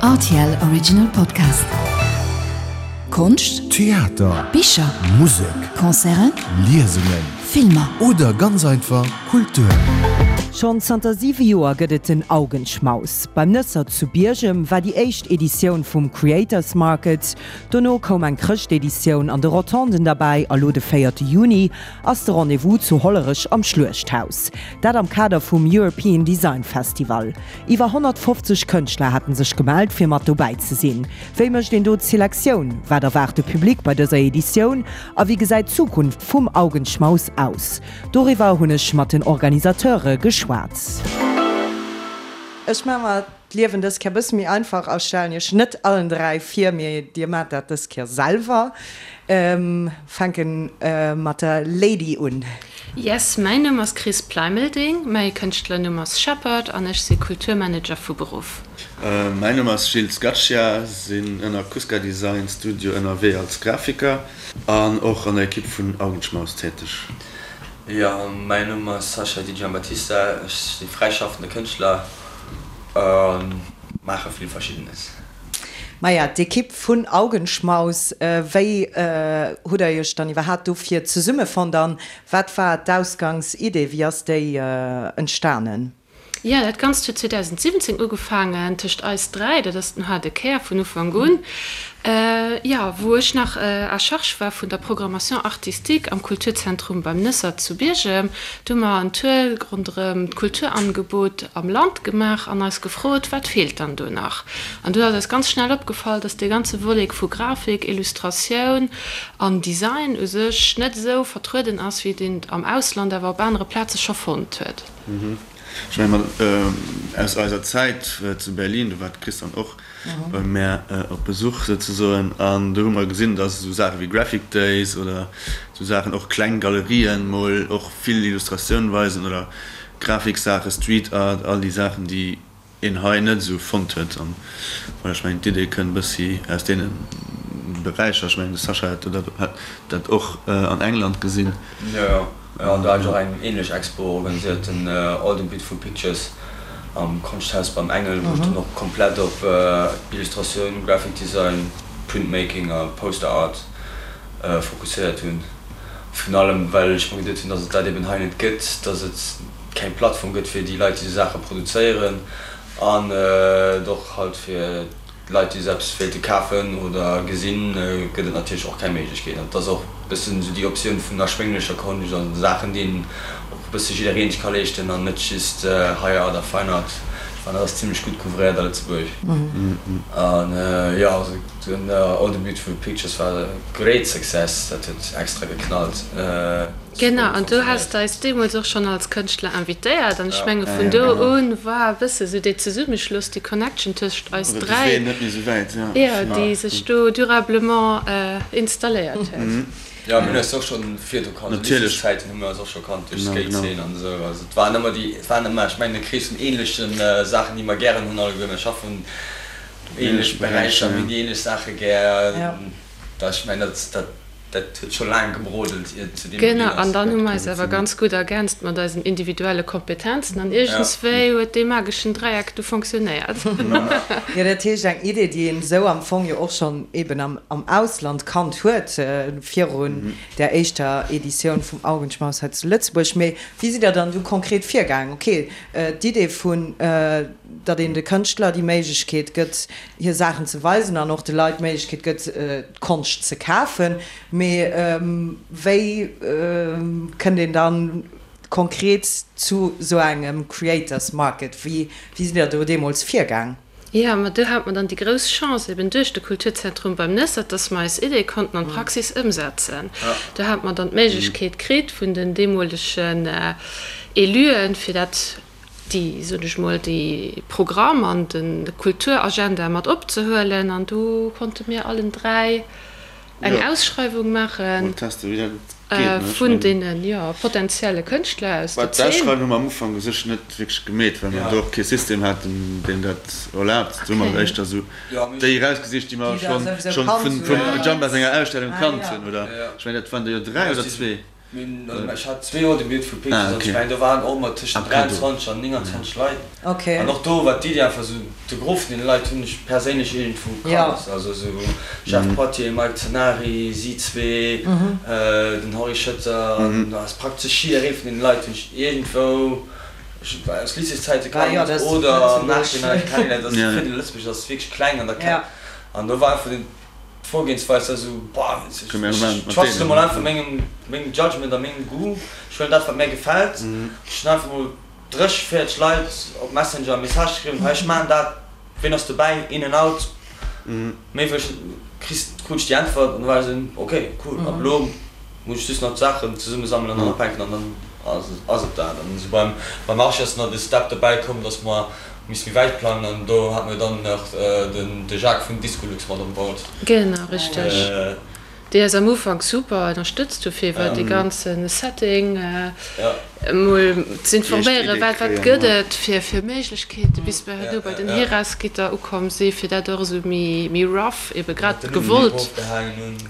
Rtl Original Podcast. Konscht, Theater, Bicher, Musek, Concerten, Liesungen, Filmer. Oder ganz einfach Kultur. Schonn zanter 7 Joer gëtt et den Augenschmaus. Beim Nëssert zu Biergem war déi éischt Editioun vum Creators Market. Dono koum eng Chrëschteditioun an de Rotonden derbäi a lo de véierte Juni ass de Rendez-vous zu Hollerech am Schluechthaus. Dat am Kader vum European Design Festival. Iwwer 150 Kënschtler haten sech gemellt fir mat dobäi ze sinn. Wéi mécht een do d'Selektioun? Wat erwaart de Public bei dëser Editioun? A wéi gesäit d'Zukunft vum Augenschmaus aus? Doriwwer hunn ech mat den Organisateure geschwat. Ech maache mer d'Liewen dës Kéier bësse méi einfach a stellen iech net allen 3 vir, mee dir maacht dat dës Kéier selwer. Fänken mat der Lady un. Yes, mäin Numm ass Chris Pleimelding, mäi Kënschtlernumm ass Shepherd an ech si Kulturmanager vu Beruff. Mäin Numm ass Gilles Scaccia, sinn ënner Kuska Design Studio ënnerwee als Grafiker an och an der Ekipp vun Augenschmaus täteg. Jo, mäin Numm ass Sascha Di Giambattista, ech si fräischaffende Kënschtler a maache vill Verschiddenes. Maja, d'Ekipp vun Augenschmaus, wéi hutt der iech dann iwwerhaapt dofir zesummefonnt an wat war d'Ausgangsidee, wéi ass déi entstanen? Jo, dat Ganzt huet 2017 ugefaangen tëscht eis 3, dat ass den haarde Kär vun Ufank un, jo, wou ech nach à charge war vun der Programmation artistique am Kulturzentrum beim Nëssert zu Biergem. Do hu mer en Tour ronderëm d'Kulturangebot am Land gemaach an eis gefrot, wat feelt dann do nach? An do ass eis ganz schnell opgefall, dass dee ganze Volet vu Grafik, Illustratioun an Design u sech net esou vertrueden ass, wéi et een et am Ausland awer op anere Plaze scho fonnt huet. Ech menge mer aus eiser Zäit zu Berlin, do war d'Chris dann och bei mär op Besuch souzesoen, an do hu mer gesinn, dass esou Saache wéi Graphic Days oder esou Saachen, och kleng Galerien mol och vill Illustratioun weisen oder Grafiksaache, Street Art, all déi Saachen, déi een hei net esou fonnt huet. An voilà, ech mengen d'Idee kënnt e bëssi aus deene Beräicher. Ech mengen de Sascha hat hat dat och an England gesinn. Jo, jo, an do hat ech och eng ähnlech Expo organiséiert, den All the Beautiful Pictures am Konschthaus beim Engel, wou ech dann och komplett op Illustratioun, Graphic Design, Printmaking a Poster Art fokusséiert hunn. Virun allem well ech mer geduet hunn, dass et dat eben hei net gëtt, dass et keng Plattform gëtt fir déi Leit déi esou Saache produzéieren an et och halt fir d'Leit déi esou eppes wéilte kafen oder gesinn, gëtt et natierlech och keng Méiglechkeet. An et ass och e bëssen esou déi Optioun vun erschwénglecher Konscht an Saachen déi een och e bësse jiddereen sech ka leeschten an net just High Art a Fine Art. Ech fannen dat ass zimlech gutt couvréiert a Lëtzebuerg. An jo, also den All the Beautiful Pictures war e great success, dat huet extra geknallt. Genau, an du has eis deemools och schonn als Kënschtler invitéiert an ech menge vun do un war e bësse sou dee Zesummeschloss, déi Connection tëscht eis 3, jo, déi sech do durablement installéiert huet. Jo, mir hunn eis och schonn virdu kannt, zu Lycéeszäiten hu mir eis och scho kannt duerch d'Skate-Zeen an esou. Also et waren ëmmer déi, et waren ëmmer, ech mengen e Krees vun ähnleche Saachen, déi mer gären hunn alleguer. Mir schaffen ähnlech Beräicher, mir hunn déi ähnlech Saache gär. Ech mengen dat, dat. Dat huet scho laang gebrodelt, ier et zu deem Genau, ginn ass. an dann hu mer eis awer ganz gutt ergänzt mat eisen individuelle Kompetenzen an iergendswéi huet dee mageschen Dräieck du fonctionnéiert. Jo, dat heescht eng Idee, déi een esou am Fong jo och schonn eben am Ausland kannt huet, virun där éischter Editioun vum Augenschmaus hei zu Lëtzebuerg. Mee wéi sidd Der dann du konkret virgaangen? Ok, d'Idee vun, datt een de Kënschtler déi Méiglechkeet gëtt, hir Saachen ze weisen an och de Leit d'Méiglechkeet gëtt, d'Konscht ze kafen. Mee wéi kënnt een dann konkret zu sou engem Creators Market? Wéi sidd der do deemools virgaang? Jo, ma do hate mer dann déi grouss Chance, eben duerch de Kulturzentrum beim Nessert, dass mer eis Idee konnten an d'Praxis ëmsetzen. Do hate mer dann d'Méiglechkeet kritt vun den deemolegen Éluen, fir dat déi, soen ech mol, dee Programm an de Kulturagenda mat opzehuelen. An do konnte mir allen 3 eng Ausschreiwung maache vun deene, jo, potenzielle Kënschtler aus der Zeen. D'Ausschreiwung hu mer am Ufank u sech net wierklech gemeet, well mer do och kee System haten, deen dat erlaabt. Do hu mer éischter esou déi erausgesicht, déi mer schonn vum Jamba senger Ausstellung kannt hunn, oder? Ech mengen, dat waren der jo 3 oder zwee. Ech hat zwee Joer de Beautiful Pictures an ech mengen do waren och ëmmer tëschent 23 an 29 Leit. An och do war d'Iddi einfach esou, de Gros vun deene Leit hunn ech perséinlech iergendwou kannt. Also esou Jeff Poitier, Mike Zenari, si zwee, den Henri Schëtter an do ass praktesch jidderee vun deene Leit hunn ech iergendwou aus Lycéeszäite kannt oder am Nachhinein kennengeléiert. Also d'Fidel Lëtzebuerg ass wierklech kleng an da kennt an do war einfach den. D'Vorgehensweis ass esou, boah, ech trust elo mol einfach mengem, mengem Judgment a mengem Goût, ech huelen dat wat mär gefält. Ech hunn einfach mol 30, 40 Leit op Messenger e Message geschriwwen, hei ech maachen dat, ween ass dobäi, in and out, méi wëll ech net, kriss, krut ech déi Äntwert an da war ech esou, ok, cool, ab elo muss ech just nach d'Saachen zesummesammelen an ophänken an dann ass et dat. An esou beim, beim Archi ass nach de Step dobäi komm, dass mer Misst méi wäit plangen an do hat mir dann nach den de Jacques vun Discolux mat on board. Genau, richteg. Déi eis am Ufank super ënnerstëtzt hu fir iwwer dee ganze Setting emol z'informéieren, wat wat gëtt et fir fir Méiglechkeete bis mer herno bei den Heras-Gitter ukomm si fir dat och esou méi méi rough, ebe grad gewollt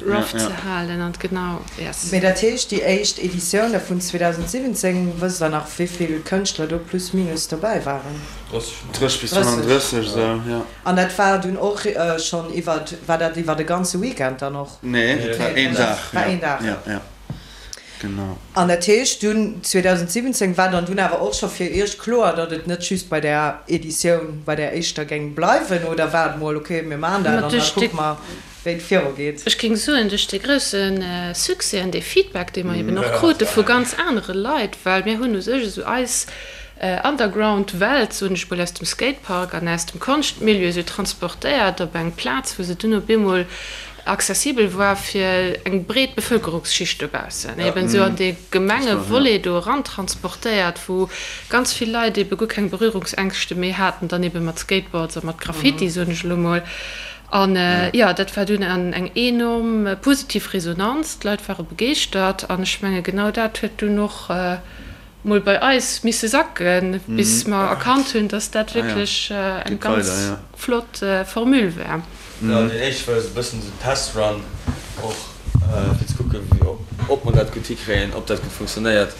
rough ze halen an genau, yes. Mee dat heescht déi éischt Editioun da vun 2017, wësst der nach wéivill Kënschtler do plus minus dobäi waren? 30 bis 35 esou, jo. An dat war dunn och schonn iwwer, war dat iwwer e ganze Weekend dann och? Nee, dat war een Dag. War een Dag. Jo, jo, genau. An dat heescht dunn 2017 war dann dunn awer och scho fir iech kloer, datt et net just bei där Editioun, bei där éischter géing bleiwen, oder war et mol, ok, mir maachen dat an da kucke mer, wéi et viru geet? Ech géing soen, duerch dee grousse Succès an dee Feedback, dee mer eben och krute vu ganz anere Leit, well mir hunn u sech esou eis Underground-Welt, soen ech mol, aus dem Skatepark an aus dem Konschtmilieu esou transportéiert op eng Plaz, wou se dunn op eemol accessibel war fir eng breet Bevëlkerungsschicht dobaussen, eben esou an dee Gemengevolet do erantransportéiert, wou ganz vill Leit ebe guer keng Berührungsängschte méi haten, dann ebe mat Skateboards a mat Graffiti, soen ech elo mol. An jo, dat war dunn eng enorm positiv Resonanz, d'Leit ware begeeschtert an ech menge genau dat huet dunn och mol bei eis misse sacken, bis mer erkannt hunn, dass dat wierklech eng ganz flott Formule war. Jo, deen éischte war esou e bëssen esou Testrun och, fir ze kucken, ob mer dat gutt hikréien, ob dat gutt funktionéiert.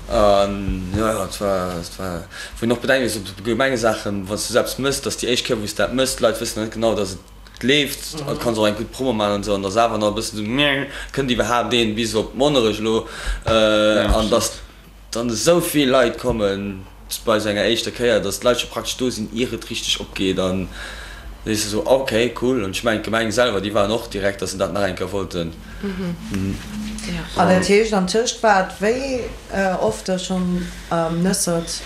An jo, jo, et war, et war, wou een och bedenke muss, op Gemengesaachen, wann s du eppes mëss, dass déi éischt Kéier, wou s dat mëss, d'Leit wëssen nach net genau, dass et leeft, an du kanns och eng gutt Promo maachen an esou, an dass awer nach e bëssen esou, Meh, kënnt iwwerhaapt een bis op Monnerech elo? An dass dann esou vill Leit kommen bei esou enger éischter Kéier, dass d'Leit scho praktesch do sinn, ier et richteg opgeet, an da sees de esou, ok, cool. An ech mengen, d'Gemeng selwer, déi waren och direkt, dass se dat nach eng Kéier wollten. An dat heescht, an tëscht war et wéi oft da schonn am Nëssert?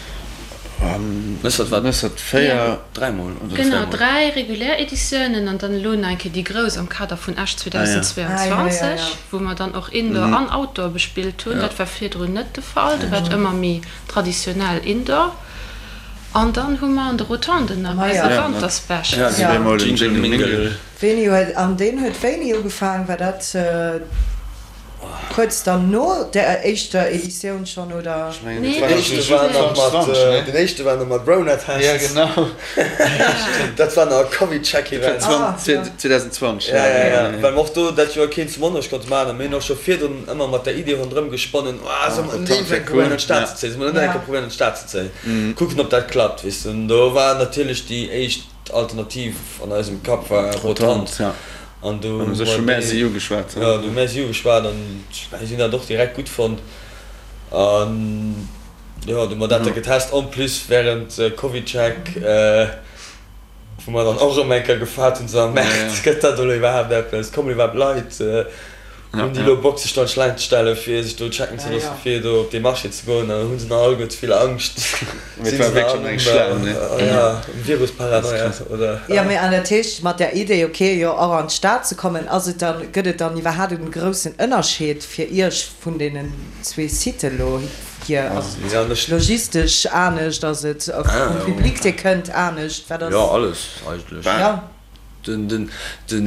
Nëssert war Nëssert 4, dräimol oder Genau, dräi regulär Editiounen an dann elo nach eng Kéier déi grouss am Kader vun Esch 2022, wou mer dann och Indoor an Outdoor bespillt hunn. Dat war virdrun net de Fall, do war et ëmmer méi traditionell Indoor. An dann hu mer an de Rotonden nach eise Wanterspecial. Wéini huet, an deen huet wéini ugefaang? War dat kuerz dann no der éischter Editioun schonn, oder? Ech mengen, dat war nach esou 2020, ne? Den éischte war nach mat Rona-Test. Ja, genau. Dat war nach e Covid-Check-Event. 2020, ja. Ja, ja, ja. Well mer och do dat Joer keen zu Monnerech konnte maachen a mir hunn och scho virdrun ëmmer mat der Idee ronderëm gesponnen, Oh, solle mer net iergendwéi eng probéieren an d'Stad ze zéien? Solle mer net eng Kéier probéieren an d'Stad ze zéien? Kucken, ob dat klappt, weess de. An do war natierlech déi éischt. D'Alternativ an eisem Kapp war Rotant. An do hu mer déi, jo, do hu mär si ugeschwat an si hunn dat och direkt gutt fonnt. An jo, do hu mer dat da getest. En plus während CovidCheck, wou mer dann och erëm eng Kéier gefaart hunn, so Merde, gëtt dat elo iwwerhaapt eppes, kommen iwwerhaapt Leit? Hunn déi elo Bock sech do an d'Schlaang ze stellen fir sech do checken ze loossen fir do op dee Marché ze goen? An hunn se nach alleguer ze vill Angscht? Sinn se nach all um, ja, um Virus-Paranoia oder? Jo, mee an dat heescht mat där Idee, ok, jo och an d'Stad ze kommen, ass et dann, gëtt et dann iwwerhaapt en groussen Ënnerscheed fir Iech vun deenen zwee Siten elo hier? Ass et logistesch anescht, ass et vum Public dee kënnt anescht, wat ass? Jo, alles eigentlech. Jo. Den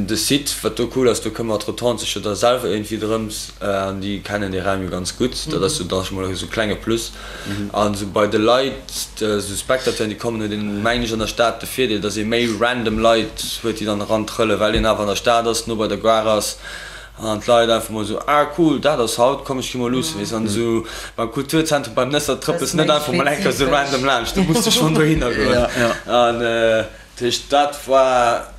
de Site, wat do cool ass, do këmmert d'Rotonde sech jo da selwer iergendwéi drëms an déi kennen dee Raum jo ganz gutt. Dat ass jo da scho mol esou e klenge Plus. An esou bei de Leit, esou Spectateuren, déi kommen, huet een, mengen ech, an der Stad de Virdeel, datt ee méi random Leit huet, déi dann erantrëllen, well een awer an der Stad ass, no bei der Gare ass. An d'Leit einfach mol esou, ah cool, dat ass haut, komm ech gi mol luussen, weess. An esou beim Kulturzentrum beim Nëssert trëppels net einfach mol eng Kéier esou random laanscht, do muss de schonn dohinner goen. An dat heescht, dat war,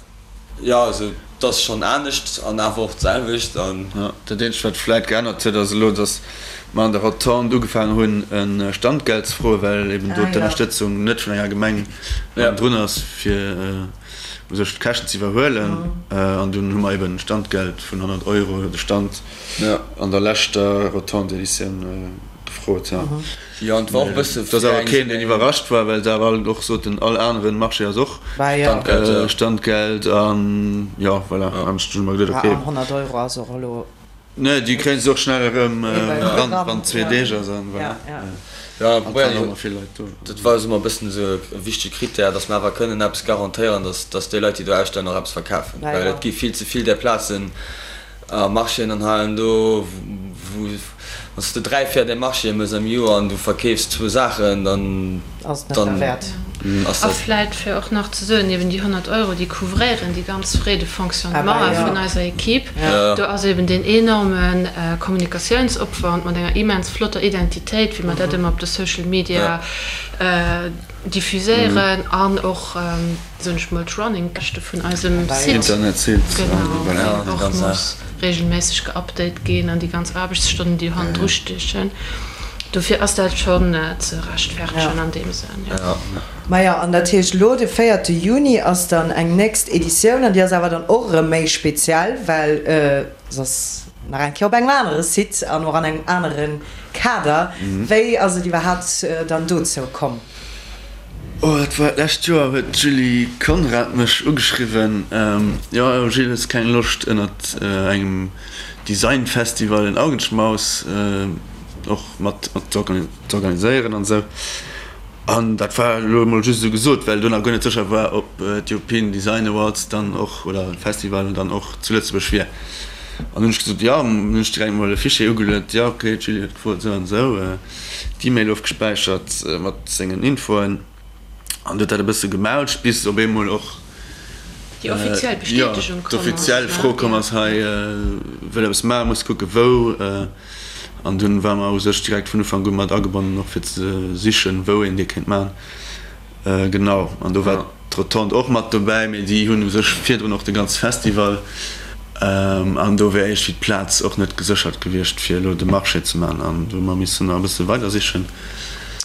jo, also et ass schonn anescht an awer och d'selwecht. An. Jo, dat eenzegt wat vläit geännert huet ass elo, datt mer an der Rotonde ugefaangen hunn e Standgeld ze froen, well eben do d'Ënnerstëtzung net vun enger Gemeng drun ass fir. u sech d'Käschten ze iwwerhuelen. An dunn hu mer eben Standgeld vun 100 Euro de Stand an der leschter Rotonde-Editioun gefrot. Jo, an et war och e bësse Et ass awer keen, deen iwwerrascht war, well se awer all och soten, all anere Marché ass och Standgeld. An jo, voilà, an ech hu mer geduet, okay. An 100 Euro ass och elo. Nee, déi kréien se och schnell erëm eran, wann zwee Deeg ass an voilà. Ja, an et waren och vill Leit do. Dat war eis ëmmer e bëssen esou e wichtege Critère, dass mer awer kënnen eppes garantéieren, dass, dass déi Leit, déi do ausstellen, och eppes verkafen. Well et gi vill ze vill där Plazen a Marchéen an hei an do, wou, wann s de dräi, véier där Marchéë méchs am Joer an du verkeefs zwou Saachen, dann, Ass et net derwäert. A vläit fir och nach ze soen, eben déi 100 Euro, déi couvréieren déi ganz Frais de fonctionnement vun eiser Equipe. Do ass eben deen enorme Kommunikatiounsopwand mat enger immens flotter Identitéit, wéi mer dat ëmmer op de Social Media diffuséieren an och, soen ech mol, d'Running-Käschte vun eisem Site, genau, deen och muss regelméisseg geupdate ginn an déi ganz Aarbechtsstonnen, déi hannendru stiechen. Dofir ass dat schonn ze rechtfertegen an deem Sënn, jo. Majo, an dat heescht elo de véierte Juni ass dann eng nächst Editioun an déi ass awer dann och erëm méi speziell, well se ass nach eng Kéier op engem anere Site an och an engem anere Kader. Wéi ass et iwwerhaapt dann dozou komm? Oh, dat war d'lescht Joer, huet d'Julie Conrad mech ugeschriwwen, Jo, Gilles, hues keng Loscht ënnert engem Designfestival en Augenschmaus och mat z'organiséieren an esou. An dat war elo emol just esou gesot, well do nach guer net sécher war, ob d'European Design Awards dann och, oder Festival dann och zu Lëtzebuerg wier. An hunn ech gesot, jo, hunn ech direkt mol e Fichier ugeluet, jo, ok, d'Julie huet gefrot, esou an esou, d'E-Mail ofgespäichert mat sengen Infoen. An du huet dat e bësse gemaulcht, bis op eemol och déi offiziell Bestätegung komm ass, d'offiziell Fro komm ass, hei wëll eppes maachen, muss kucke wou. An dunn ware mer u sech direkt vun Ufank u mat agebonnen, och fir ze sichen, wou een dee kéint maachen. Genau, an do war d'Rotonde och mat dobäi, mee déi hunn u sech virdrun och de ganze Festival. An do wär iergendwéi d'Plaz och net geséchert gewiescht, fir elo de Marché ze maachen. An do hu mer missen nach e bësse weider sichen.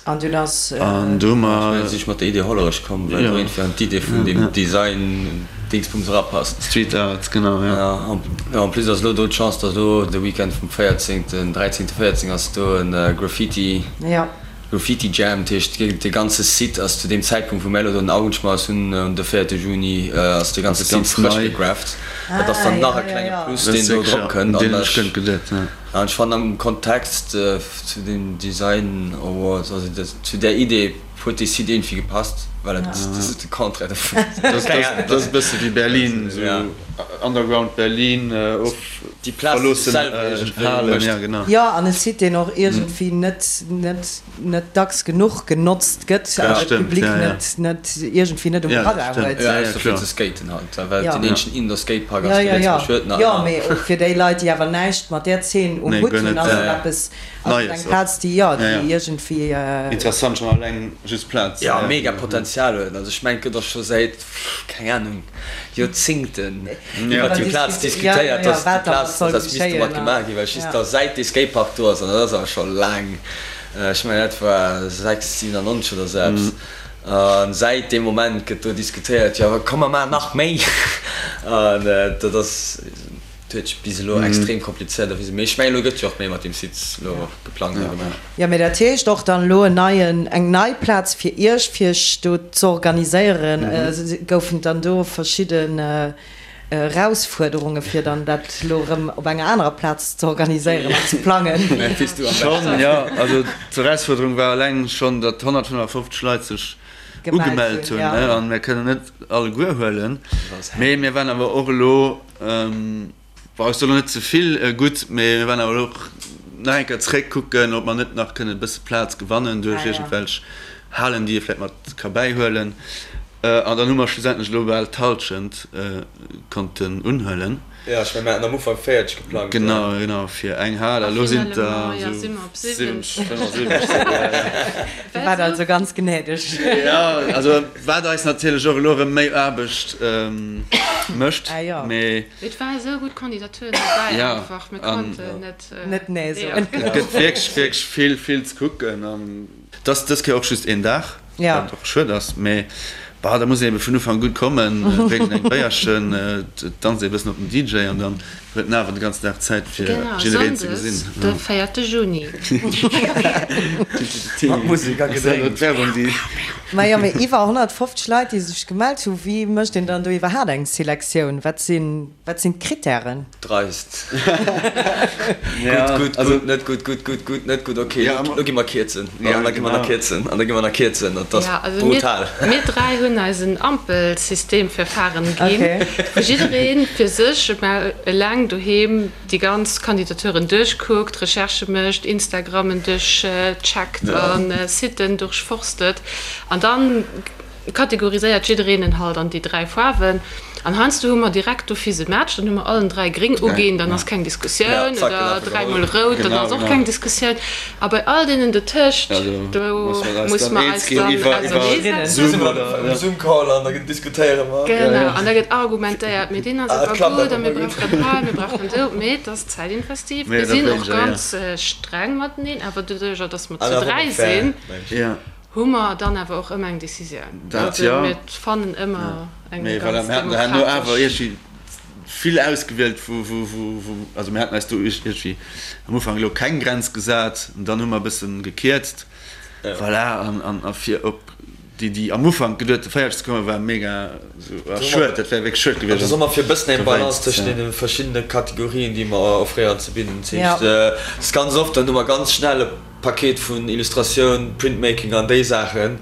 An dunn ass. An do hu mer. Ech mengen, si ech mat der Idee Hollerech komm, well do iergendwéi an d'Idee vun deem Design-Dingsbums erapasst. Street Art, genau, jo. Jo, en plus ass elo do d'Chance, datt elo de Weekend vum 14., 13., 14 ass do e Graffiti. Graffiti Jam, dat heescht dee ganze Site ass zu deem Zäitpunkt wou mir elo do den Augenschmaus hunn, un de 4 Juni, ass dee ganze Site frësch gegrafft. Dat ass dann nach e klenge Plus deen do drop kënnt. An ech fannen am Kontext zu den Design Awards, also zu där Idee huet dee Site iergendwéi gepasst, well et ass de Contraire dovun. Dat ass e bësse wéi Berlin, esou Underground Berlin, of Déi Plaz déi sech selwer iergendwéi mécht. Jo, an e Site deen och iergendwéi net, net, net dacks genuch genotzt gëtt an de Public net, net, iergendwéi net um Radar huet. Jo, ausser fir ze skaten halt, well et deen eenzegen Indoor-Skatepark ass, dee Lëtzebuerg huet nach ëmmer. Jo, mee och fir déi Leit, déi awer näischt mat där Zeen um Hutt hunn, ass et eppes, ass et eng Plaz, déi, jo, déi iergendwéi. Interessant schonn alleng just d'Plaz. Jo, mega Potenzial huet. Also ech mengen, et gëtt och scho säit, keng Ahnung, Joerzingten iwwert déi Plaz diskutéiert, dass déi Plaz, dass eppes misst domat gemaach ginn, well just da säit dee Skatepark do ass, an dat ass awer scho laang, ech mengen dat war 6, 97 oder esou eppes, a säit deem Moment gëtt do diskutéiert, jo komm mer maachen nach méi, an dat ass, dat huet sech bis elo extrem komplizéiert erwisen, mee ech mengen elo gëtt jo och méi mat deem Site elo geplangt a gemaach. Jo, mee dat heescht och dann elo en neien, eng nei Plaz fir Iech, fir Iech do z'organiséieren. Goufen et dann do verschidden Erausfuerderunge fir dann dat elo erëm op enger anerer Plaz ze organiséieren an ze plangen? Schonn, jo. Also d'Erausfuerderung war eleng schonn, datt 155 Leit sech ugemellt hunn, an mir kënnen net alleguer huelen. Mee mir waren awer och elo, Bon, ech soen elo net ze vill gutt, mee mir waren awer elo och nach eng Kéier zréck kucken, ob mer net nach kënnen e bësse Plaz gewannen duerch iergendwelch Halen, déi ee vläicht mat ka bäihuelen. An dann hu mer schlussendlech elo bal d'Hallschent konnten unhuelen. Jo, ech mengen, mir haten am Ufank 40 geplangt. Genau, genau, fir eng Hal. A elo sinn et der esou 70, 75. Dir waart also ganz gnädeg. Jo, also wat eis natierlech och elo erëm méi Aarbecht mécht, mee. Et ware esou gutt Kandidaturen dobäi einfach, mir konnten net. Net nee soen. Et gëtt wierklech, wierklech vill, vill ze kucken. An et ass dës Kéier och just een Dag. Wat och schued ass, mee bah, da muss een ebe vun Ufank un kommen, drénkt een eng Béierchen, danzt ee bëssen op den DJ an dann huet en awer de ganzen Dag Zäit fir jiddereen ze gesinn. Genau, Sonndes de 4 Juni. Mat Musek a Gedrénks. Majo, mee iwwer 150 Leit déi sech gemellt hu, wéi mécht een dann do iwwerhaat eng Selektioun? Wat sinn, wat sinn d'Krittären? Dreist. Gutt, gutt, gutt, net gutt, gutt, gutt, gutt, net gutt, ok, lo gi mer kierzen. An da gi mer nach kierzen an da gi mer nach kierzen. Dat ass brutal. Mir dräi hunn eis en Ampelsystem fir Faren ginn, wou jidderee fir sech eleng doheem déi ganz Kandidaturen duerchkuckt, Recherchë mécht, Instagrammen duerchcheckt a Siten durchforstet an dann Kategoriséiert jiddereen en halt an déi 3 Faarwen an heiansdo hu mer direkt d'office e Match, dann hu mer allen 3 gréng uginn, dann ass keng Diskussioun, oder 3 mol rout, dann ass och keng Diskussioun a bei all deenen dotëscht, do muss mer eis dann auserneesetzen. Genau, an da gëtt argumentéiert, mee deen ass awer gutt a mir brauchen dat hei, mir brauchen do, mee et ass zäitinvestiv. Mir sinn och ganz streng mateneen, awer doduercher, datt mer zu 3 sinn, Hu mer dann awer och ëmmer eng Decisioun. Dat jo. Also mir fannen ëmmer eng Mee voilà, ganz mir haten herno awer demokratesch. iergendwéi vill ausgewielt, wou, wou, wou, wou, also mir haten eis do iergendwéi am Ufank elo keng Grenz gesat an dann hu mer e bëssen gekierzt. Voilà, an, an, a fir op déi, déi am Ufank geduete 40 ze kommen, war mega esou, ah schued, dat wär wierklech schued gewiescht. Also soe mer fir e bëssen eng Balance Dowéinst, tëschent ja. deene verschiddene Kategorien, déi mer offréieren, ze bidden. Dat heescht, et ass ganz oft, dann hu mer ganz schnell e. Paket vun Illustratioun, Printmaking an déi Saachen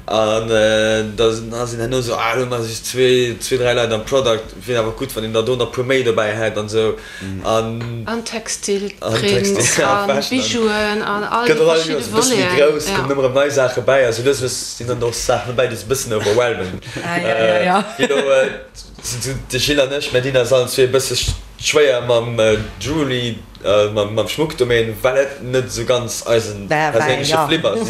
an da sinn herno esou, ah elo hu mer just zwee, 3 Leit am Product, wier awer gutt wann een der do nach puer méi dobäi hätt an esou an. An Textil, Prints a Bijouen an all déi verschidde Voleten. Gëtt och all Joers e bësse méi grouss, kommen ëmmer erëm nei Saache bäi a sou lues lues sinn dann och Saachen dobäi déi se e bëssen overwhelmen. Wéi elo de Gilles an ech, mir dinn eis allen zwee e bësse schwéier mam Jewelry. Mam Schmuckdomaine, well et net esou ganz eisen perséinleche Flip ass.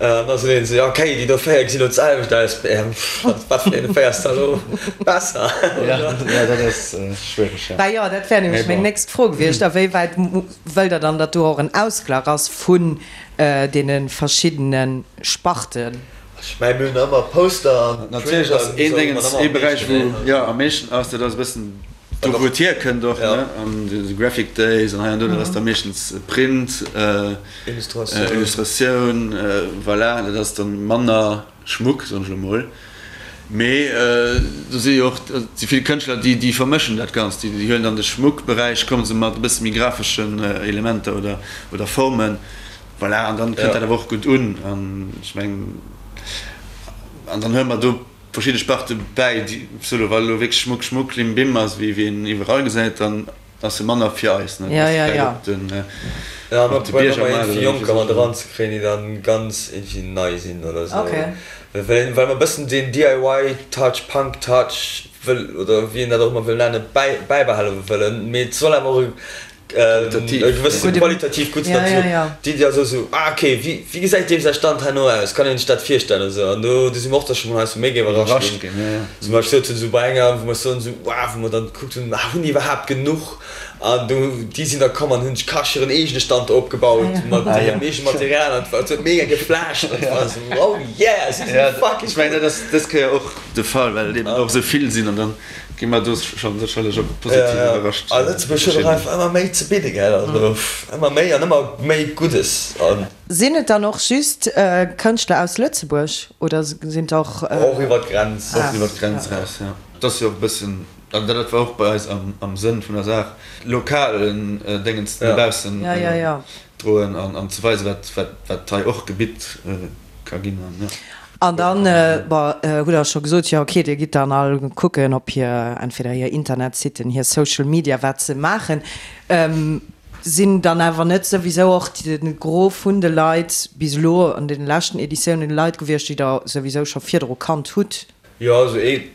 An da sot een esou, jo okay, déi do 4 gesinn elo d'selwecht aus, wat vun deene 4 ass da elo besser? Jo, dat ass schwiereg, jo. Bah jo, dat wär nämlech meng nächst Fro gewiescht, a wéi wäit wëllt Der dann, datt do och en Ausglach ass vun deene verschiddene Sparten? Ech mengen, mir hunn ëmmer Poster an Natierlech ass een Déngens ee Beräich, wou jo am meeschten ass, dat ass e bëssen do wou et hierkënnt och, ne, an de Graphic Days an hei an do, dat ass da meeschtens Print, Illustratioun, voilà, dat ass dann manner Schmuck, soen ech elo mol. Mee do si jo och, et si vill Kënschtler, déi déi vermëschen dat Ganzt, déi huelen dann de Schmuckberäich, komme se mat e bësse méi grafeschen Elementer oder oder Formen. Voilà, an dann kënnt dat awer och gutt un. An ech mengen, an dann huele mer do verschidde Sparte bäi, déi solo, wa elo wierklech Schmuck, Schmuck, Klimbim ass, wéi wéi een iwwerall gesäit, dann ass e manner fir eis, ne? Ja, ja, ja. Op den, Ja, mer op de probéieren ëmmer Biergermaart iergendwéi oder Jonker mat wéi. eranzekréien, déi dann ganz iergendwéi nei sinn oder esou. Okay. Well, well mer e bëssen deen DIY-Touch, Punk-Touch wëll, oder wéi een dat och ëmmer wëll nennen, bäi, bäibehale wëllen. Mee et soll awer och e e gewësse qualitativ gutt ja, ja, ja. D'Iddi ass esou, ah okay, wéi, wéi gesäit deem säi Stand herno aus, kann een sech dat virstellen esou an do, do si mer och da scho mol heiansdo méi iwwerrascht ginn, ja, ja. Zum Beispill sot hunn esou bei enger, wou mer soen esou, wow, wou mer dann gekuckt hunn, ah hunn déi iwwerhaapt genuch an do, déi sinn da komm an hunn sech kasch hiren eegene Stand do opgebaut mat hirem eegene Material an et huet mega geflasht an et war esou, oh yeah, si sinn fucking Ech mengen dat ass dës Kéier och de Fall, well et eben och esou vill sinn an dann Gi mer do schonn sécherlech och positiv iwwerrascht. A Lëtzebuerg huet och einfach ëmmer méi ze bidde, gell? Also ëmmer méi an ëmmer méi Guddes. Sinn et dann och just Kënschtler aus Lëtzebuerg oder sinn et och. Och iwwer d'Grenz. Och iwwer d'Grenz eraus, jo. Et ass jo och e bëssen, also dat war och bei eis am Sënn vun der Saach, lokalen Déngens no baussen droen an ze weisen, wat hei och gebitt ka ginn. An dann, bon, hutt Der scho gesot, jo okay, Dir gitt dann all kucken op hir, entweder hir Internetsitten, hir Social Media, wat se maachen. Sinn dann awer net souwisou och de Gros vun de Leit bis elo an deene leschten Editiounen Leit gewiescht, déi Der souwisou scho virdru kannt hutt? Jo, also ee,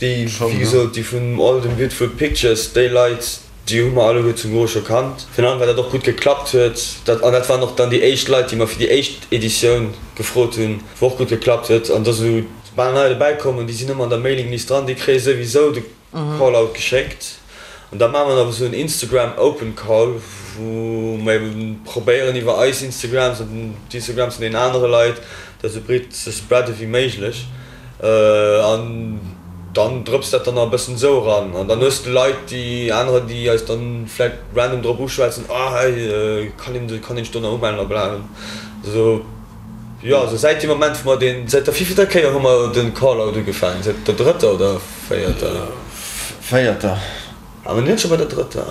déi, wéi gesot, déi vun Old and Beautiful Pictures, déi Leit, déi hu mer alleguer zum Gros scho kannt. Virun allem, well dat och gutt geklappt huet. Dat, an dat waren och dann déi éischt Leit, déi mer fir déi éischt Editioun gefrot hunn, wou och gutt geklappt huet. An da sou bal nei dobäi kommen, déi sinn ëmmer an der Mailinglist dran, déi kréie souwisou de Callout geschéckt. An da maache mer nach esou en Instagram Open Call, wou mer eben probéieren iwwer eis Instagrams an d'Instagrams vun deenen anere Leit dat esou breet ze spreade wéi méiglech. An dann drëpst dat dann nach e bëssen esou eran. An dann hues de Leit, déi anerer, déi eis dann vläicht random drop uschwätzen, ah hey, kann een, kann een sech do nach umellen a bla. Esou. Jo, also säit deem Moment wou mer deen, säit der wéivillter Kéier hu mer de Callout ugefaangen? Säit der drëtter oder véierter? Véierter. Awer net scho bei der drëtter?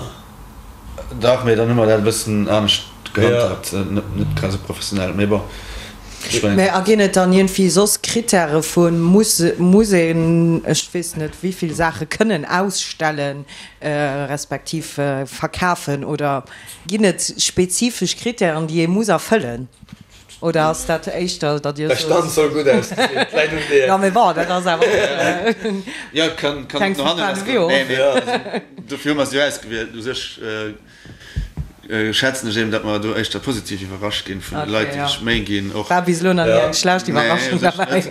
Dach, mee dann hu mer dat e bëssen anescht gehandhabt, net grad esou professionell, mee bon, ech mengen. Mee a ginn et dann iergendwéi soss Krittäre vu muss, muss een, ech weess net wéivill Saache kënnen ausstellen, respektiv verkafen oder ginn et spezifesch Krittären, déi ee muss erfëllen? Oder ass dat éischter, datt Dir sot. Der Stand soll gutt ausgesinn, et läit un dir. Jo, mee bon, dat ass awer och Jo, kann och no hannen lassgoen. Nee, mee also dofir hu mer se jo ausgewielt. U sech schätzen ech eben, datt mer do éischter positiv iwwerrascht ginn vun de Leit, déi sech Méi ginn och. War bis elo nach ni eng schlecht Iwwerraschung derbäi.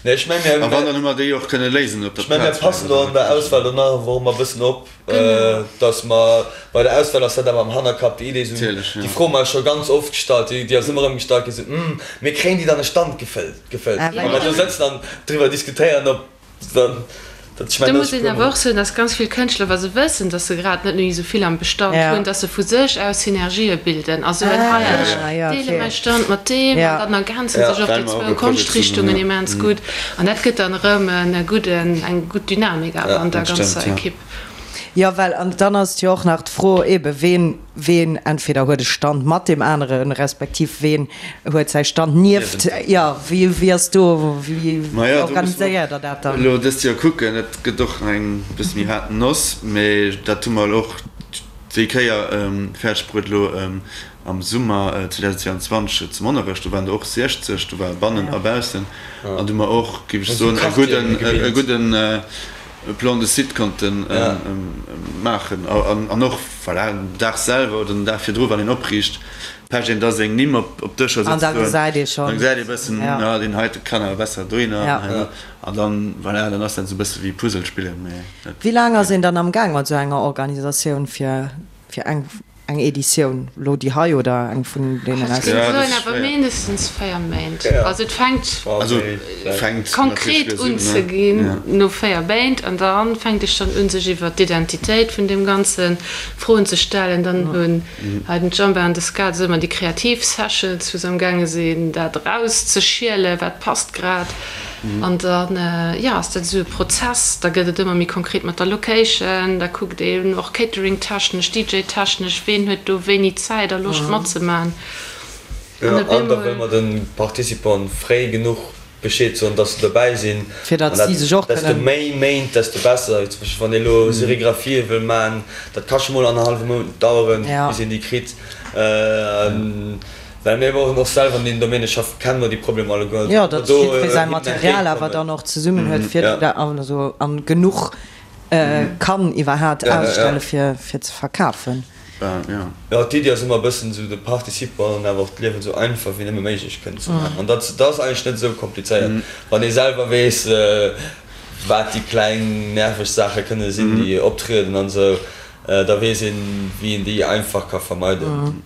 Nee, ech meng, mir. A wann, dann hu mer déi och kënne léisen op der Plaz. Ech meng, mir passen do an der Auswahl do nach einfach ëmmer e bëssen op. Dass mer bei der Auswahl ass dat awer am Hannerkapp, déi Idee, esou déi Fro hu mer eis scho ganz oft gestallt, déi ass ëmmer erëm gestallt ginn, esou, Hm, mir kréien déi dann e Stand gefëllt, gefëllt. Wa mer do sëtzen an driwwer diskutéieren, ob dann dat, ech mengen, Do muss een awer och soen, dass ganz vill Kënschtler, wa se wëssen, dass se grad net méi esou vill am Bestand hunn, dass se vu sech aus Synergië bilden a soen, hei, ech deele mäi Stand mat deem an dann ergänze sech och déi zwou Konschtrichtungen immens gutt. An dat gëtt dann erëm e gudden, eng gutt Dynamik awer an der ganzer Ekipp. Jo, well an dann ass et jo och nach d'Fro eebe ween, ween entweder huet e Stand mat deem aneren, respektiv ween huet säi Stand nieft, jo, wéi, wéi ass do, wéi organiséiert Der dat dann? Elo dëst Joer kucken, et gëtt och eng bësse méi haart Noss, mee dat hu mer elo och déi Kéier fäerdeg bruet elo Am Summer 2022 zu Monnerech, do waren der och 60, do war bannen a baussen, an do hu mer och, géif ech soen, e gudden, e gudden Plan de site konnte maachen. An och, voilà, den Dag selwer oder den Dag virdru, wann een opriicht, pecht een da seng Nimm op d'Dëscher An da gesäit ee schonn. Da gesäit ee bëssen, ah, deen heite kann awer besser dohinner. An dann, voilà, dann ass dat esou e bësse wéi Puzzle spillen, mee dat. Wéi laang ass een dann am Gaang mat esou enger Organisatioun, fir eng Eng Editioun, lo déi hei oder eng vun deenen aus. Ech géing soen awer mindestens 4 Méint. Also et fänkt konkret un ze ginn no 4 Méint an da fänkt ee schonn un sech iwwer d'Identitéit vun deem Ganze Froen ze stellen. Dann hunn hei den Jamba an de Ska esou ëmmer déi kreativ Sessions wou se am gaange sinn dat erauszeschielen, wat passt grad. An dann, jo, ass dat esou e Prozess. Da gëtt et ëmmer méi konkret mat der Location. Da kuckt een och Catering-technesch, DJ-technesch, ween huet do wéini Zäit a Loscht matzemaachen. An op eemol. An da wëlle mer de Participanten fréi genuch Bescheed soen, dass se dobäi sinn. Fir datt si sech och kënnen. Desto méi Méint, desto besser. Zum Beispill wann ee elo Serigraphië wëll maachen, dat ka scho mol annerhallwe Mount daueren, bis een déi kritt. Well mir och och selwer an deem Domaine schaffen, kenne mer déi Problemer alleguer. Jo, datt jiddweree säi Material awer dann och zesummen huet, fir also an genuch kann iwwerhaat ausstelle fir fir ze verkafen. Jo, d'Iddi ass ëmmer e bëssen esou de Participanten awer och d'Liewen esou einfach wéi nëmme méiglech kënnen ze maachen. An dat ass eigentlech net esou komplizéiert, wann ee selwer weess, wat déi kleng nerveg Saache kënne sinn, déi optrieden an esou, da weess een, wéi een déi einfach ka vermeiden.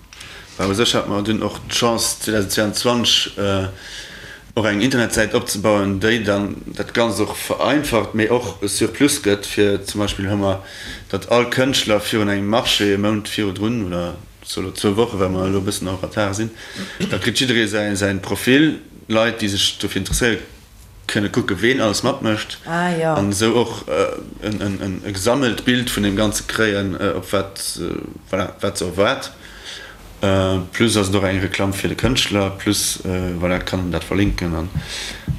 Well u sech hate mer dunn och d'Chance 2022 och eng Internetsäit opzebauen, déi dann dat Ganzt och vereinfacht, mee och e Surplus gëtt, fir zum Beispill hu mer, datt all Kënschtler virun engem Marché e Mount virdrun, oder so elo zwou Woche well mer elo e bëssen en retard sinn, da kritt jidderee säin Profil, Leit déi sech dofir interesséieren, kënne kucke ween alles matmécht an esou och e gesammelt Bild vun deem Ganze kréien, op wat, voilà, wat se erwaart. Plus ass et och eng Reklamm fir de Kënschtler, plus, voilà, kann en dat verlinken an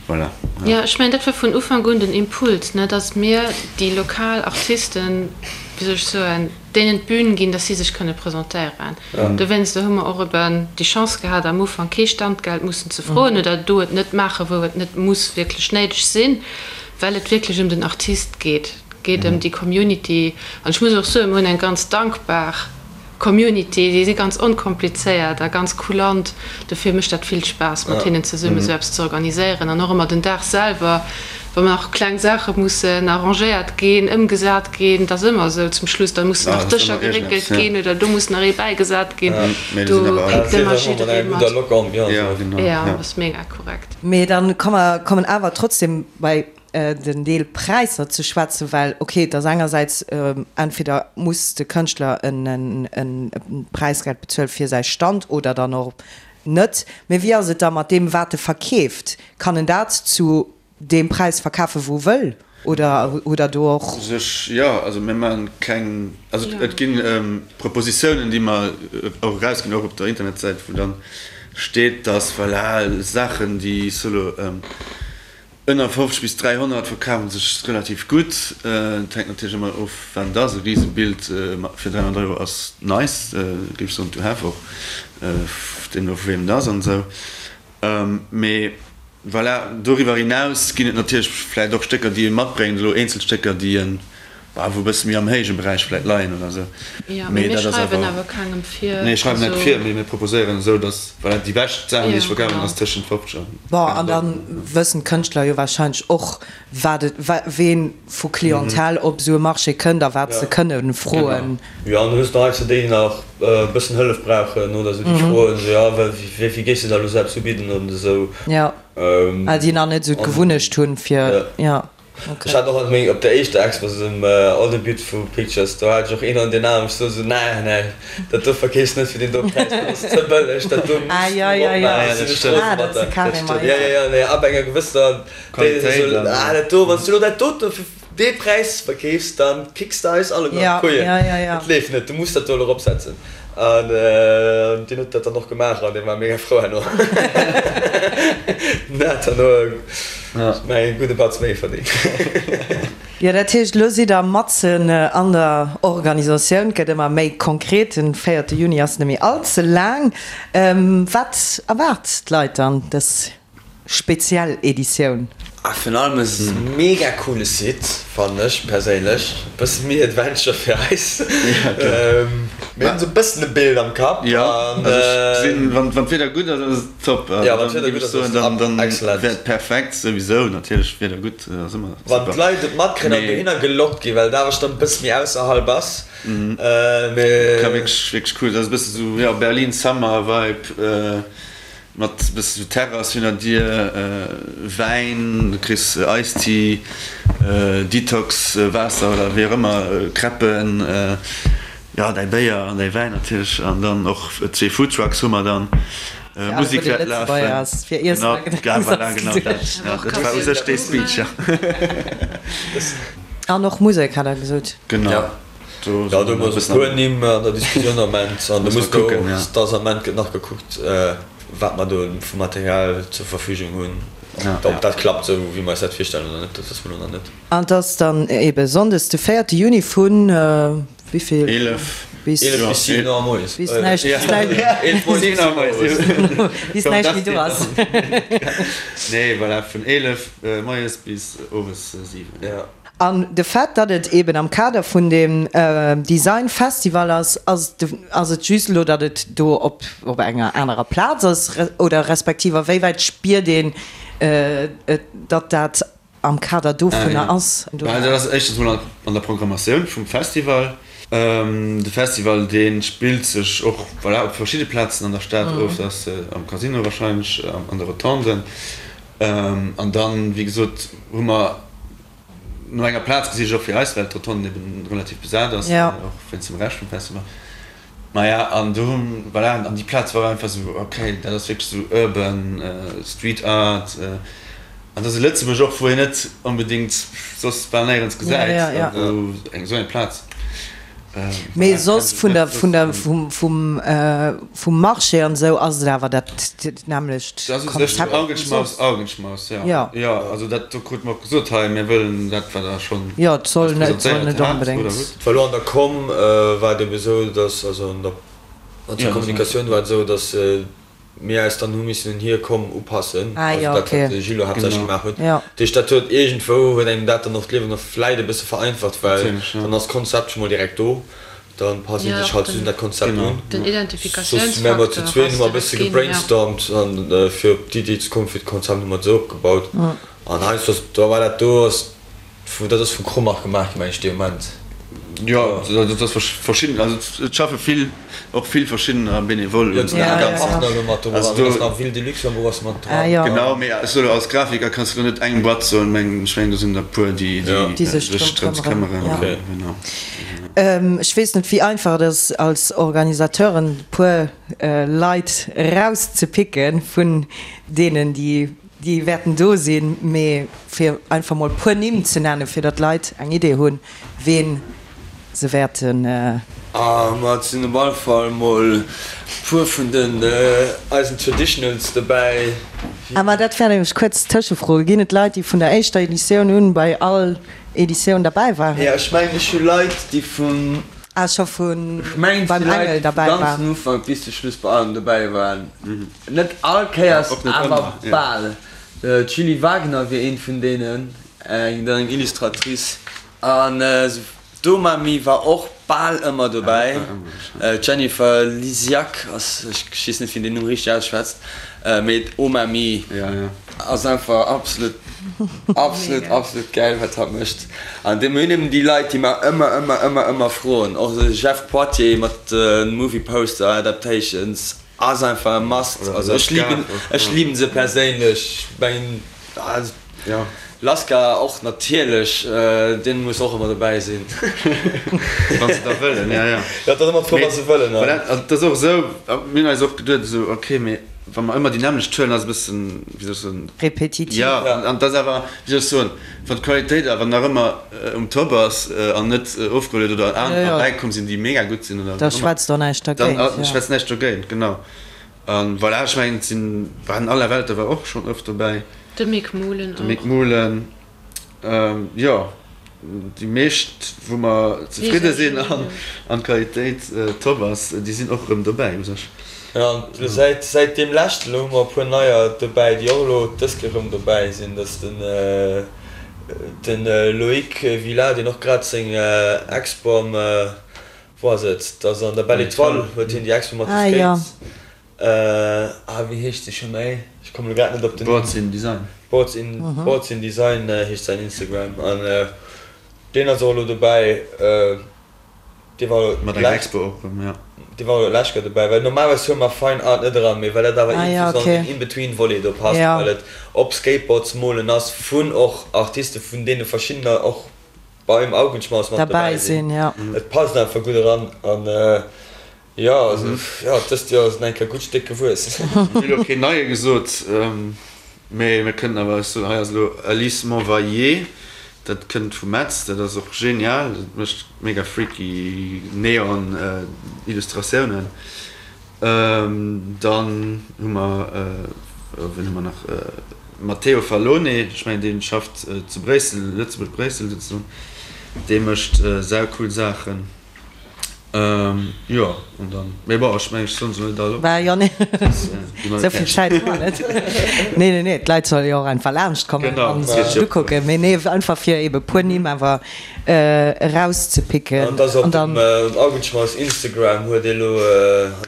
voilà. Jo, ech mengen dat war vun Ufank un den Impuls, ne, datt mir déi lokal Artisten, wéi soll ech soen, deenen d'Bün ginn, dass si sech kënne presentéieren. Dowéinster hu mer och eben déi Chance gehat, am Ufank kee Standgeld mussen ze froen oder do et net maachen, wou et net muss wierklech néideg sinn. Well et wierklech ëm den Artist geet. Et geet ëm déi Community. An ech muss och soen, mir hunn eng ganz dankbar Community. Déi si ganz onkomplizéiert a ganz kulant. Dofir mécht dat vill Spaass, mat hinnen zesummen esou eppes ze organiséieren. An och ëmmer den Dag selwer, wa nach kleng Saache mussen arrangéiert ginn, ëmgesat ginn, et ass ëmmer esou zum Schluss, da mussen nach Dëscher geréckelt ginn oder do muss nach ee bäigesat ginn. Do péckt ëmmer jidderee mat. Jo, dat ass mega korrekt. Mee dann kommen awer trotzdem bei den Deel Präisser ze schwätzen, well ok, et ass engersäits, entweder muss de Kënschtler e Präisgeld bezuelen fir säi Stand oder dann och net. Mee wéi ass et da mat deem wat e verkeeft? Kann en dat zu deem Präis verkafen wou e wëll oder hutt der do och. U sech jo, also mir maachen keng, also et gi Propositiounen déi mer och erausginn, och op der Internetsäit wou dann steet, dass voilà Saachen déi solo Ënner 50 bis 300 verkafen sech relativ gutt. Et hänkt natierlech ëmmer of wat et ass. E Risebild fir 300 Euro ass nice, géif ech soen, to have och, deemno vu weem et ass an esou. Mee voilà, doriwwer hinaus ginn et natierlech vläicht och Stécker déi ee matbréngt, elo eenzel Stécker déi en Bah, wou e bësse méi am héije Beräich vläit leien oder esou. Jo, mee mir schreiwen awer kengem vir. Nee, schreiwen net vir, mee mir proposéieren esou, datt, voilà, déi bescht Saachen, déi sech verkafen, ass tëschent 50 an 100 Euro. Bon, an da wëssen d'Kënschtler jo warscheinlech och, wat et, ween vu Clientèle op esou e Marché kënnt a wat se kënne froen. Jo, an du hues nach heiansdo déi, déi nach e bëssen Hëllef brauchen oder esou, déi froen esou, jo, wéi vill géifs de da elo selbst ubidden oder esou. Jo, well déi nach net esou d'Gewunnecht hunn, fir, jo. Ech hat och an meng, op der éischter Expo zum All the Beautiful Pictures, do hat ech och een an den Aarm, ech sot esou, nee, nee, dat do verkeefs net fir deen do Präis, dat ass ze bëlleg, dat do muss du eropmaachen, sinn ech rose mat der. Jo, jo, jo, nee, ab enger gewësser Qualitéit, ah, dat do, wann s du elo dat dote fir dee Präis verkeefs, dann kicks de eis alleguer an d'Kojen, dat leeft net, du muss dat do elo eropsetzen. An deen huet dat dann och gemaach an dee war mega frou herno. Den hat herno ech mengen e gudde Batz méi verdéngt. Jo, dat heescht, elo sidd der matzen an der Organisatioun. Et gëtt ëmmer méi konkret. Den véierte Juni ass net méi all ze laang. Wat erwaart d'Leit dann dës Speziell Editioun. A virun allem ass et e mega coole Site, fannen ech perséinlech. E bësse méi Adventure fir eis. Mir hunn esou e bëssen e Bild am Kapp. Jo, also ech gesinn, wann d'Wieder gutt ass, ass et top. Jo, wann d'Wieder gutt ass, ass et excellent. Wär et perfekt souwisou, natierlech Wieder gutt ass ëmmer super. Wann d'Leit et matkréien an dohinner gelockt ginn, well et awer schonn e bësse méi ausserhalb ass. Mee. Ka wierklech, wierklech cool. Dat ass e bësse sou, jo, Berlin Summer Vibe. Mat bësse sou Terrass hinner dir, Wäin, du kriss Ice-Tea, Detox Waasser oder wéi och ëmmer, Crêpen, jo däi Béier an däi Wäin natierlech an dann och zwee Foodtrucks hu mer dann. Musek wäert lafen. Genau, voilà, genau dat, dat war u sech dee Speech, jo. An och Musek hat der gesot. Genau. Jo, do hu mer esou e puer Nimm an der Diskussioun am Ament. An do muss do, et ass am Ament gëtt nach gekuckt, wat mer do vu Material zur Verfügung hunn, ob dat klappt esou wéi mer eis dat virstellen oder net, dat wësse mer elo nach net. An et ass dann ebe sonndes de véierte Juni vu wéi vill? 11 bis 11 bis 7 Auer moies. Bis näischt, bis näischt méi do ass. Nee, voilà, vun 11 moies bis owes 7. An de Fait, datt et eben am Kader vun deem Design Festival ass, ass ass et just elo, datt et do op op enger anerer Plaz ass oder respektiv a wéi wäit spiert een et, datt dat am Kader dovunner ass? Bah, dat ass éischtens mol an der Programmatioun vum Festival. De Festival, dee spillt sech och, voilà, op verschidde Plazen an der Stad of. Dat ass am Casino wahrscheinlech, an de Rotonden. An dann, wéi gesot, hu mer no enger Plaz gesicht, och fir eis, well d'Rotonde eben relativ besat ass, och wéinst dem Rescht vum Festival. Maja, an do hu, voilà, an déi Plaz war einfach esou, okay, dat ass wierklech esou urban Street Art. An dat ass e Lëtzebuerg och, wou een net onbedéngt soss bal néierens gesäit, a wou eng esou eng Plaz. Mee soss vun der, vun der, vum, vum, vum Marché an esou ass et awer dat nämmlecht Dat ass u sech Konzept wéi Augenschmaus, soss. Augenschmaus, jo. Jo. Jo, also dat do krute mer och gesot, hei, mir wëllen dat, wat Der schonn Jo, et soll eis net, et soll presentéiert net hat oder onbedéngt. hutt. Et war elo an der Com war et ebe sou, datt, also an der, an der Kommunikatioun war et esou, datt. Mir eis dann hu missen un hir Komm upassen, also dat wat de Gilles haaptsächlech gemaach huet. Dat heescht dat huet iergendwou huet engem dat dann och d'Liewen och vläit e bësse vereinfacht, well dann ass d'Konzept scho mol direkt do, da passt ee sech halt just un dat Konzept un. Soss mär mer zu zween hu mer e bësse gebrainstormt an fir op d'Iddi ze kommen fir d'Konzept hu mer et esou opgebaut an heiansdo ass da war dat do ass Vu dat ass vu Kromach gemaach gi meng ech dee Moment. Jo, dat ass verschidden, also et schaffe vill, och vill verschiddener Benevole un deem Ganzen. Partner elo mat do dran, do ass nach Ville de Luxembourg ass mat dran. Genau, mee ech soe lo als Grafiker kanns de lo net eng Boîte soen, meng ech mengen do sinn der e puer déi sech drëms këmmeren. Genau. Ech weess net wéi einfach et ass als Organisateuren e puer Leit erauszepicken vun deenen déi Déi wäerten do sinn, mee fir einfach mol puer Nimm ze nennen, fir datt d'Leit eng Idee hunn, ween se wäerten. A ma et sinn op alle Fall mol puer vun den eisen Traditionals dobäi. A ma dat wär nämlech kuerz Tëschefro, Ginn et Leit, déi vun der éischter Editioun un bei all Editioun derbäi waren? Jo, ech mengen ech hu Leit, déi vun. Ah, scho vun Ech mengen et beim si Leit, Engel déi vum derbäi waren. ganzen Ufank bis de Schluss bei allem dobäi waren. Net all Kéiers, awer bal. D'Julie Wagner wier eent vun deenen, eng dann eng Illustratrice. An d'Omami war och bal ëmmer dobäi. D'Jennifer Lisiak ass, ech weess net, wéi een deen Numm richteg ausschwätzt, mee d'Omami ass einfach absolut, absolut, absolut gäil, wat hatt mécht. An mir hunn eben déi Leit, déi mer ëmmer, ëmmer, ëmmer, ëmmer froen. Och de Jeff Poitier mat de Movie Poster Adaptations. Ass einfach e must, also ech liben ech liben se perséinlech, mengen jo Laska och natierlech, deen muss och ëmmer dobäi sinn. Wann se da wëllen, ja ja. Jo, et ass ëmmer d'Fro wa se wëllen. Voilà, also et ass och esou, mir hunn eis och geduet esou, ok, mee wa mer ëmmer déi nämmlecht huelen, ass e bëssen, wéi soll ech soen, Repetitiv. Jo, an et ass awer, wéi soll ech soen, wann d'Qualitéit awer nach ëmmer um Top ass an net ofgeholl huet oder anerer bäikomm sinn, déi mega gutt sinn oder Da schwätzt och näischt dergéint. Dann schwätzt näischt dogéint, genau. A voilà, ech mengen, et sinn, waren Allerwelter war och schonn oft dobäi. De Mick Muhlen och. De Mick Muhlen, jo, déi meescht, wou mer zefridde sinn an d'Qualitéit top ass, déi sinn och erëm dobäi u sech. Jo, an elo säit, säit deem leschten elo hu mer e puer neier dobäi, déi och elo dës Kéier erëm dobäi sinn. Dat ass den, den Loïc Villa, deen och grad seng Expo am, wou ass et, dat ass an der Belle Etoile huet hien déi Expo mat de Skates. Ah, wéi heescht se scho méi? Ech kommen elo grad net op den Numm. Boards in Design. Boards in, Boards in Design heescht säin Instagram an deen ass och elo dobäi. Dee war elo Mat enger Expo och erëm, jo. Dee war elo d'lescht Kéier dobäi, well normalerweis huele mer Fine Art net eran, mee well dat awer iergendwéi sou an den In-Between-Volet do passt, well et op Skateboards molen ass vun och Artiste vun deene verschiddener och beim Augenschmaus mat dobäi sinn. Et passt einfach gutt eran an jo, also jo, dëst Joer ass et eng Kéier gutt Stéck gewuess. Mir hu elo keen neie gesot, mee mir kënnen awer, ech soen, hei ass elo Alice Monvayer. Dat kënnt vu Metz, dat ass och genial, dat mécht mega freaky Neon Illustratiounen. Dann hu mer, wien hu mer nach, Matteo Fallone, ech mengen dee schafft zu Bréissel, Lëtzebuerg-Bréissel souzesoen, dee mécht saucool Saachen. Jo, an dann, mee bon, ech mengen, ech soen se net all op. Bah jo, nee, esou vill Zäit hu mer net. Nee, nee, nee, d'Leit solle jo och einfach laanscht kommen a sech et ukucken. Mee nee, einfach fir ebe puer Nimm awer erauszepicken. An dass op dem Augenschmaus Instagram huet ee lo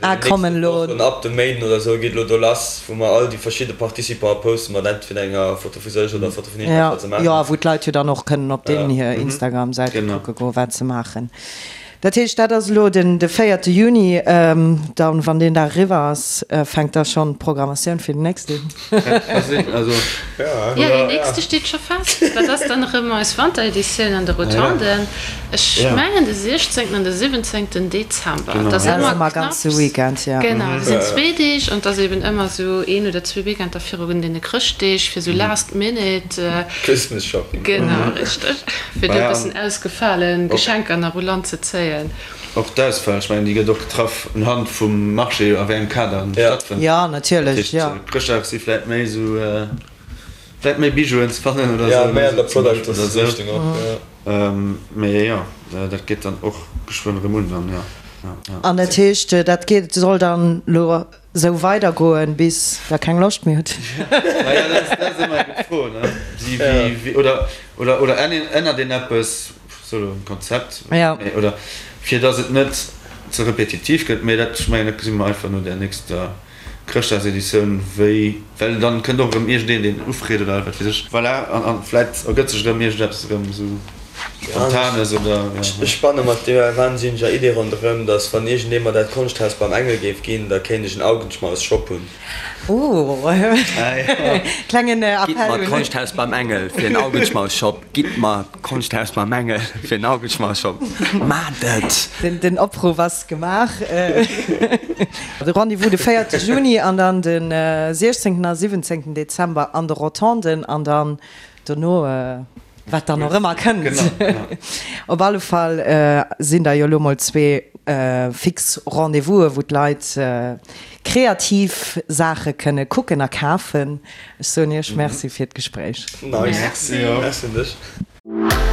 an deenen nächsten Wochen, ab dem Méinden oder esou, geet elo do lass, wou mer all déi verschidde Participante poste mat entweder enger Foto vu sech oder Foto vun hinnen, wat se maachen. Jo, a wou d'Leit jo dann och kënnen op deenen hir Instagram-Säite kucke goen, wat se maachen. Dat heescht, dat ass elo den de véierte Juni. Dann, wann deen Dag eriwwer ass, fänkt da schonn d'Programmatioun fir den nächsten un? Jo, deen nächste steet scho fest. Dat ass dann erëm eis Wantereditioun an de Rotonden. Ech mengen de 16. an de 17. Dezember. Dat ass ëmmer knapps. Genau, dat sinn zwee Deeg an et ass eben ëmmer esou een oder zwee Weekender virun deene Chrëschtdeeg fir esou last minute. Christmas Shopping. Genau, richteg. Fir do e bëssen ausgefale Geschenker nach u Land ze zéien. Och d'Auswahl, ech mengen, déi gëtt och getraff unhand vum Marché, a wéi engem Kader en stattfënnt. Jo, natierlech, jo. Dat heescht, Chrëschtdag si vläit méi esou, vläit méi Bijouen ze fannen oder esou. Jo, méi an der Product-Richtung och, jo. Mee jo, dat geet dann och geschwënn erëm un dann, jo. An dat heescht, dat geet, soll dann elo. Sou weider goen bis der keng Loscht méi hutt. Naja, dat ass ëmmer eng gutt Fro, ne? Wéi, oder, oder, oder ännert een eppes, sou um Konzept, oder fir datt et net ze repetitiv gëtt, mee dat, ech mengen, dat gesi mer einfach no där nächster Chrëschtdagseditioun, wéi, well dann kënnt och erëm iergendeen, deen ufreet oder wat weess ech. Voilà, an, an vläit ergëtt sech erëm iergendeppes erëm esou Spontanes oder, ja. Ech spanne mat deer wahnsinneger Idee ronderëm, dass wann iergendee mer dat Konschthaus beim Engel géif ginn, da kéint ech en Augenschmaus-Shop hunn. Oh, klengen Appell Gitt mer d'Konschthaus beim Engel fir en Augenschmaus-Shop! Gitt mer d'Konschthaus beim Engel fir en Augenschmaus-Shop! Maacht et! Den Opruff ass gemaach. De Rendez-vous de 4 Juni an dann de 16 a 17 Dezember an de Rotonden an dann dono wat dann och ëmmer kënnt. Op alle Fall sinn da jo elo mol zwee fix Rendez-vous'e wou d'Leit kreativ Saache kënne kucken a kafen. Ech soen Iech Merci fir d'Gespréich. Nice. Merci un dech.